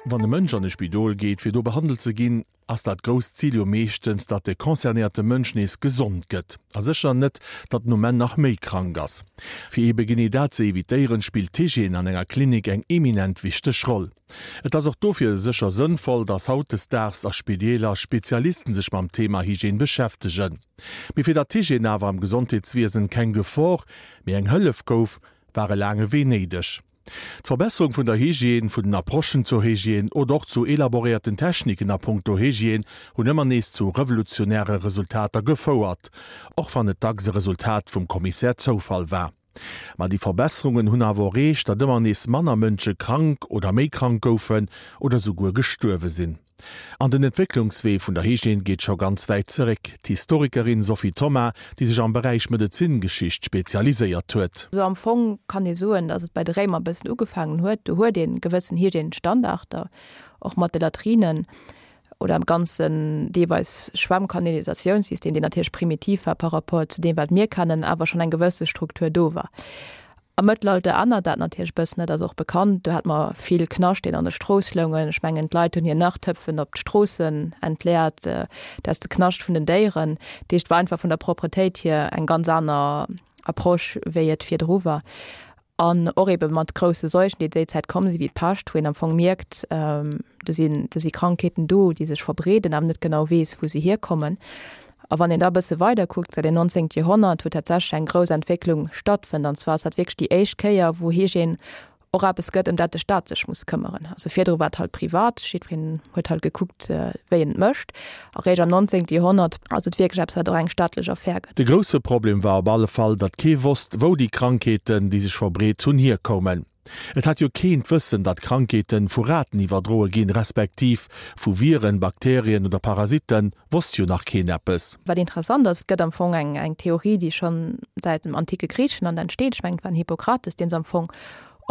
Wann e Mënsch an e Spidol geet, fir do behandelt ze ginn, ass dat grousst Zil jo meeschtens, datt de concernéierte Mënsch nees gesond gëtt. A sécher net, datt en um Enn nach méi krank ass. Fir eebe genee dat ze evitéieren, spillt d'Hygiène an enger Klinik eng eminent wichteg Roll. Et ass och dofir sécher sënnvoll, datt hautdesdaags a Spideeler Spezialisten sech mam Thema Hygiène beschäftegen. Mee fir datt d'Hygiène awer am Gesondheetswiesen keng Gefor, mee eng Hëllef gouf, war e laange Wee néideg. D'Verbesserung vun der Hygiène, vun den Approchen zur Hygiène oder och zu elaboréierten Techniken a punkto Hygiène hunn ëmmer nees zu revolutionäre Resultater gefouert, och wann et dacks e Resultat vum Kommissär Zoufall war. Ma déi Verbesserungen hunn awer och ereecht, datt ëmmer nees manner Mënsche krank oder méi krank goufen oder souguer gestuerwe sinn. An den Entwécklungswee vun der Hygiène geet scho ganz wäit zeréck. D'Historikerin Sophie Thoma, déi sech am Beräich Medezingeschicht spezialiséiert huet. Sou am Fong kann ee soen, datt et bei de Réimer e bëssen ugefaangen huet. Do huet ee gewëssen Hygiènestandarder, och mat de Latrinen oder am ganzen deelweis Schwemmkanalisatiounssystem, deen natierlech primitiv war par rapport zu deem, wat mir kennen, awer schonn eng gewësse Struktur do war. Am Mëttelalter ännert dat natierlech e bëssen, dat ass och bekannt. Do hat mer vill Knascht, deen an de Strooss loungen. Ech mengen, d'Leit hunn hir Nachtöpfen op d'Stroossen entleert, dat ass de Knascht vun den Déieren. Dat heescht, et war einfach vun der Propretéit hier eng ganz aner Approche, wéi et virdru war. An och ebe mat grousse Seuchen, déi déi Zäit komm sinn, wéi d'Pescht, wou een am Fong mierkt, do sinn, do si Krankheeten do, déi sech verbreeden, awer net genau weess, wou se hierkommen. A wann een da e bësse weider kuckt, säit dem 19. Joerhonnert, wou tatsächlech eng grouss Entwécklung stattfënnt, an zwar ass dat wierklech déi éischt Kéier, wou Hygiène och eppes gëtt, ëm dat de Staat sech muss këmmeren. Also virdru war et halt privat, jiddwereen huet halt gekuckt, wéi en et mécht. A réischt am 19. Joerhonnert ass et wierklech eppes, wat och eng staatlech Affär gëtt. De grousse Problem war op alle Fall, datt kee wosst, wou déi Krankheeten, déi sech verbreet hunn, hierkoumen. Et hat jo keen d'Wëssen, datt Krankheeten vu Raten iwwerdroe ginn, respektiv vu Viren, Bakterien oder Parasitten, wosst jo nach keen eppes. Wat interessant ass, et gëtt am Fong eng eng Theorie, déi schonn säit dem antike Griichenland entsteet, ech mengen et war den Hippokrates, deen se am Fong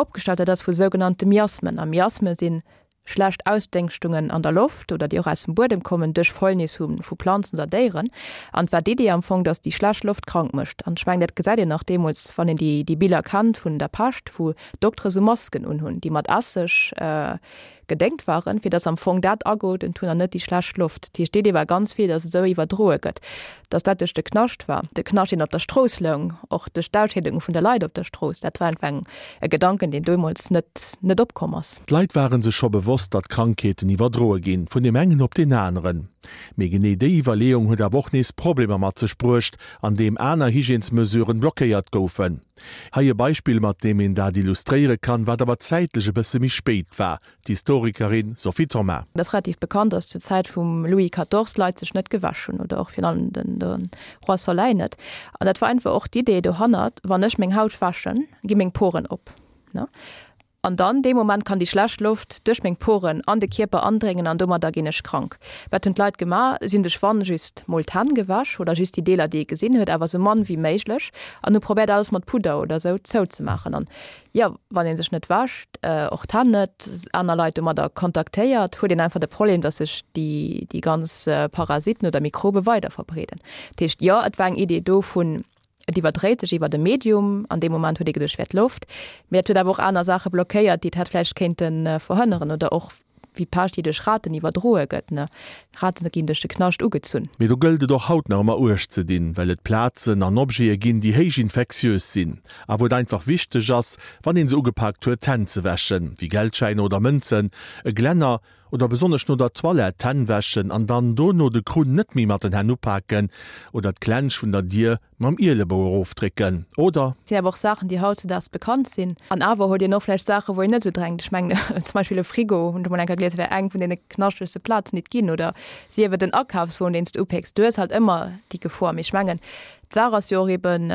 opgestallt huet, dat ass vu sougenannte Miasmen. A Miasme sinn schlecht Ausdéngschtungen an der Loft oder déi och aus dem Buedem kommen duerch Fäulnis hu vu Planzen oder Déieren. An et war d'Idee am Fong, datt déi schlecht Loft krank mécht. An ech mengen, dat gesäit een nach deemools, wann een déi déi Biller kennt vun der Pescht, wou Doktere sou Masken unhunn, déi mat Esseg gedéngt waren, fir datt am Fong dat ageotemt hunn an net déi schlecht Loft. Dat heescht, d'Idee war ganz vill, datt et esou iwwerdroe gëtt. Dass dat duerch de Knascht war, de Knascht, deen op der Strooss loung, och duerch d'Ausscheedunge vun de Leit op der Strooss, dat war einfach eng, e Gedanken, deen deemools net, net opkomm ass. D'Leit ware sech scho bewosst, datt Krankheeten iwwerdroe ginn, vun deem engen op deen aneren. Mee genee déi Iwwerleeung huet awer och nees Problemer mat sech bruecht, andeem aner Hygiènesmesuren blockéiert goufen. Hei e Beispill, mat deem een dat illustréiere kann, wat awer zäitlech e bësse méi spéit war. D'Historikerin Sophie Thoma. Et ass relativ bekannt, datt zur Zäit vum Louis quatorze d'Leit sech net gewäsch hunn oder och virun allem den de Roi Soleil net. An dat war einfach och d'Idee dohannert, wann ech meng Haut wäschen, gi meng Poren op, ne? An dann dee Moment kann déi schlecht Loft duerch meng Poren an de Kierper andréngen an domadder ginn ech krank. Wat hunn d'Leit gemaach? Si hunn sech wann just mol d'Hänn gewäsch oder just déi Deeler déi ee gesinn huet, awer sou mann wéi méiglech an hu probéiert alles mat Pudder oder sou zouzemaachen. An Jo, wann ee sech net wäscht, och d'Hänn net, aner Leit domadder kontaktéiert, huet een einfach de Problem, datt sech déi, déi ganz Parasiten oder Mikrobe weider verbreeden. Dat heescht, jo, et war eng Idee do vun, et iwwerdréit sech iwwert e Medium, an deem Moment huet ee geduecht, et wär d'Loft, mee dat huet awer och aner Saache blockéiert, déi et hätt vläicht kéinte verhënneren oder och Wéi d'Pescht, déi duerch Raten iwwerdroe gëtt, ne? Raten ginn duerch de Knascht ugezunn. Mee do gëllt et och haut nach ëmmer Uecht ze dinn, well et Plazen an Objete ginn, déi héich infektiös sinn a wou et einfach wichteg ass, wann een se ugepaakt huet, d'Hänn ze wäschen, wéi Geldschäiner oder Mënzen, e Glänner oder besonnesch no der Toilette d'Hänn wäschen an dann dono de Krunn net méi mat den Hänn upaken oder d'Klensch vun der Dier Mam Ielebou erofdrécken, oder? Et sinn awer och Saachen, déi hautzedaags bekannt sinn. An awer huet een och vläicht Saachen, wou een net esou drenkt. Ech mengen zum Beispill e Frigo, hunn ech emol eng Kéier gelies, wär eng vun deene knaschtegste Plazen, déi et ginn. Oder sief et en Akafswon, deen s de upécks. Du hues halt ëmmer déi Gefor. Mee ech mengen, d'Saach ass jo och eben,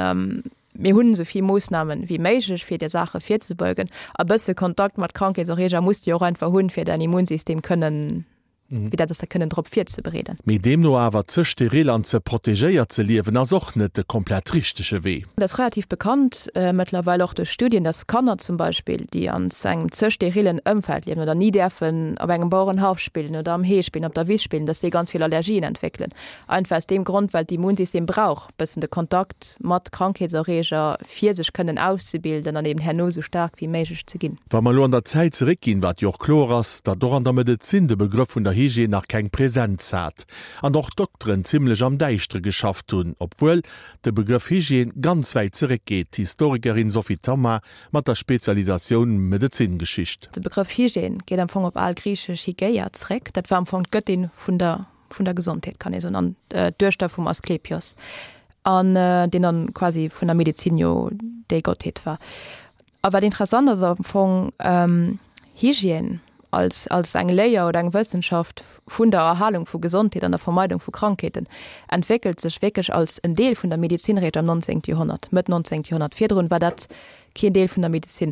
mir hunn esou vill Moossnamen wéi méiglech, fir där Saache virzebeugen. A bësse Kontakt mat Krankheetserreeger muss de jo och einfach hunn, fir däin Immunsystem kënnen. Wéi dat ass da kënnen drop virzebereeden. Mee deemno awer ze steril an ze protegéiert ze liewen ass och net de komplett richtege Wee. Et ass relativ bekannt mëttlerweil och duerch Studien, dass Kanner zum Beispill, déi an engem ze sterillen Ëmfeld liewen oder ni däerfen op engem Bauerenhaff spillen oder am Hee spillen, op der Wiss spillen, dass déi ganz vill Allergien entwéckelen. Einfach aus deem Grond, well d'Immunsystem brauch bëssen de Kontakt mat Krankheetserreeger, fir sech kënnen auszebilden an eben herno esou staark wéi méiglech ze ginn. Wa mer elo an der Zäit zeréckginn, wat jo och kloer ass, datt och an der Medezin de Begrëff vun der Hygiène nach keng Präsenz hat an och d'Dokteren zimlech am Däischtere geschafft hunn, obwuel de Begrëff Hygiène ganz wäit zeréckgeet, d'Historikerin Sophie Thomas mat der Spezialisatioun Medezingeschicht. De Begrëff Hygiène geet am Fong op algriichesch Hygeia zeréck. Dat war am Fong d'Gëttin vun der vun der Gesondheet kann ee soen, an d'Duechter vum Asklepios, an deen dann quasi vun der Medezin jo déi Gottheet war. A wat interessant ass am Fong, Hygiène als, als eng Léier oder eng Wëssenschaft vun der Erhalung vu Gesondheet an der Vermeidung vu Krankheeten entwéckelt sech wierklech als en Deel vun der Medezin réischt am 19. Joerhonnert, Mëtt 19. Joerhonnert. Virdrun war dat keen Deel vun der Medezin.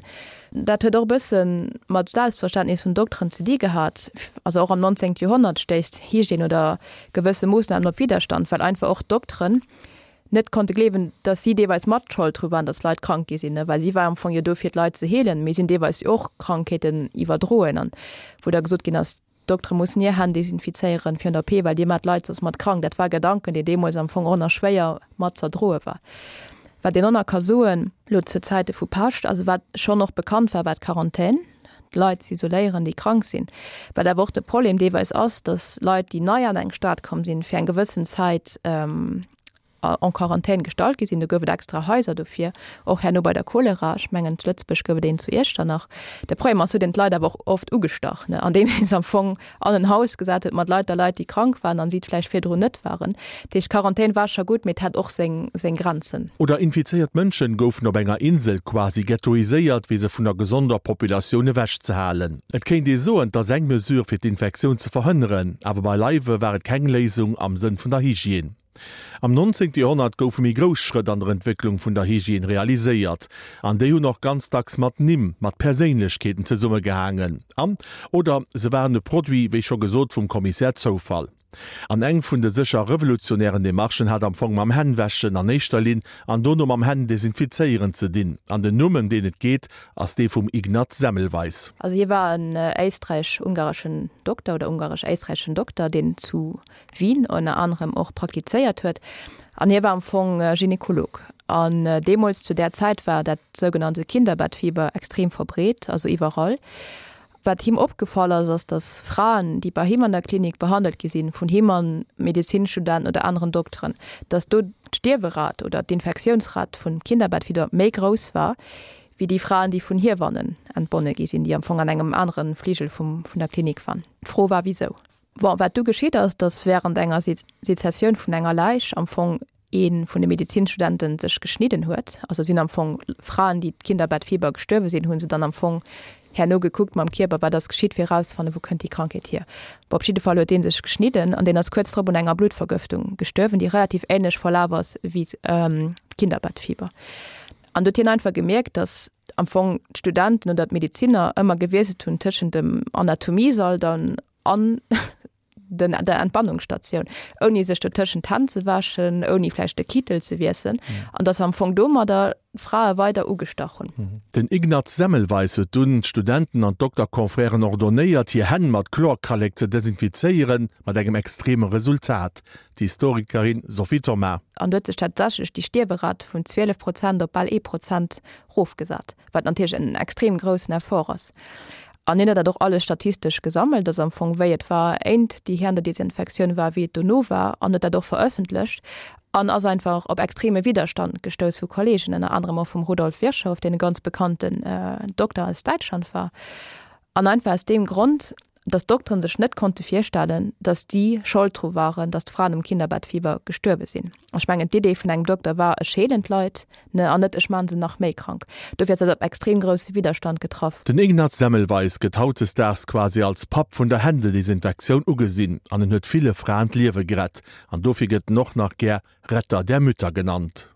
Dat huet och e bësse mat Selbstverständnis vun Dokteren ze di gehat. Also och am 19. Joerhonnert stéisst Hygiène oder gewësse Moossnamen op Widderstand, well einfach och d'Dokteren net konnte gleewen, datt si deelweis mat Schold dru waren, datt Leit krank gi sinn, well si war am Fong jo do fir d'Leit ze heelen, mee si hunn deelweis jo och Krankheeten iwwerdroen an wou da gesot ginn ass, D'Doktere mussen hir Hänn desinfizéieren virun der OP, well dir maacht d'Leit soss mat krank. Dat war e Gedanken, deen deemools am Fong och nach schwéier mat z'erdroe war. Wat een och nach ka soen, elo zu Zäite vu Pescht, also wat schonn och bekannt war, war d'Quarantän, d'Leit z'isoléieren, déi krank sinn. Wat awer och de Problem deelweis ass, datt Leit, déi nei an eng Stad komm sinn, fir eng gewëssen Zäit en Quarantän gestallt gi sinn. Do gouf et extra Haiser dofir, och herno bei der Cholera. Ech mengen zu Lëtzebuerg gouf et een zu Iechternach. De Problem ass, huet een d'Leit awer och oft ugestach, ne, andeem ee se am Fong an en Haus gesat huet mat lauter Leit, déi krank waren an si et vläicht virdrun net waren. Dat heescht, d'Quarantän war scho gutt, mee et hat och seng, seng Grenzen. Oder infizéiert Mënschen goufen op enger Insel quasi ghettoiséiert, fir se vun der gesonder Populatioun ewechzehalen. Et kéint ee soen, 't ass eng Mesure, fir d'Infektioun ze verhënneren, awer beileiwe war et keng Léisung am Sënn vun der Hygiène. Am 19. Joerhonnert goufe méi grouss Schrëtt an der Entwécklung vun der Hygiène realiséiert, an déi hunn och ganz dacks mat Nimm, mat Perséinlechkeeten zesummegehaangen an, oder se waren e Produit, wéi scho gesot, vum Kommissär Zoufall. An eng vun de sécher revolutionären Demarchen hat am Fong mam Hännwäschen an éischter Linn an dono mam Hänn-Desinfizéieren ze dinn. An den Numm, ëm deen et geet, ass dee vum Ignaz Semmelweis. Also hie war en éisträich-ungareschen Dokter oder ungaresch-éisträicheschen Dokter, deen zu Wien ënner anerem och praktizéiert huet an hie war am Fong Gynekolog. An deemools zu där Zäit war dat sougenannte Kinderbettfieber extrem verbreet, also iwwerall. Wat him opgefall ass, ass datt Fraen, déi bei him an der Klinik behandelt gi sinn, vun him an Medezinstudenten oder aneren Dokteren, datt do d'Stierwerat oder d'Infektiounsrat vum Kinderbettfieber méi grouss war, wéi déi Fraen, déi vun Hiewannen entbonne gi sinn, déi am Fong an engem anere Fligel vum, vun der Klinik waren. D'Fro war, wisou? Bon, wat du geschitt ass, datt während enger Sezessioun vun enger Läich am Fong ee vun de Medezinstudenten sech geschnidden huet. Also sinn am Fong Fraen, déi d'Kinderbettfieber gestuerwe sinn, hu se dann am Fong herno gekuckt mam Kierper, wat ass geschitt, fir erauszefannen, wou kënnt déi Krankheet hier. Bon, op jidde Fall huet dee sech geschnidden an deen ass kuerz drop un enger Bluttvergëftung gestuerwen, déi relativ änlech verlaf ass wéi d'Kinderbettfieber. An do huet hien einfach gemierkt, datt am Fong d'Studenten oder d'Medezinner ëmmer gewiesselt hunn tëschent dem Anatomiesall dann an den, der Entbannungsstatioun, ouni sech dotëschent d'Hänn ze wäschen, ouni vläicht de Kittel ze wiesselen, an dass se am Fong domadder d'Frae weider ugestach hunn. Den Ignaz Semmelweis huet dunn d'Studenten an d'Dokterconfrèren ordonnéiert, hir Hänn mat Chlorkallek ze desinfizéieren, mat engem extreme Resultat, d'Historikerin Sophie Thoma. An do huet sech tatsächlech déi Stierwerat vun 12 Prozent op bal ee Prozent rofgesat, wat natierlech en extrem groussen Effort ass. An hien huet dat och alles statistesch gesammelt, also am Fong wéi et war éint déi Händedesinfektioun war, wéi et dono war, an huet dat och verëffentlecht an ass einfach op extreme Widderstand gestouss vu Kollegen, ënner anerem och vum Rudolf Virchow, deen e ganz bekannten Dokter aus Däitschland war. An einfach aus deem Grond, datt d'Dokteren sech net konnte virstellen, datt si Schold dru waren, datt d'Fraen um Kinderbettfieber gestuerwe sinn. Ech mengen, d'Idee vun engem Dokter war, ech heelen d'Leit, ne, an net ech maachen se nach méi krank. Dofir ass dat op extrem grousse Widderstand getraff. Den Ignaz Semmelweis gëtt hautdesdaags quasi als Papp vun der Händedesinfektioun ugesinn an en huet ville Fraen d'Liewe gerett an dofir gëtt en och nach gär Retter der Mütter genannt.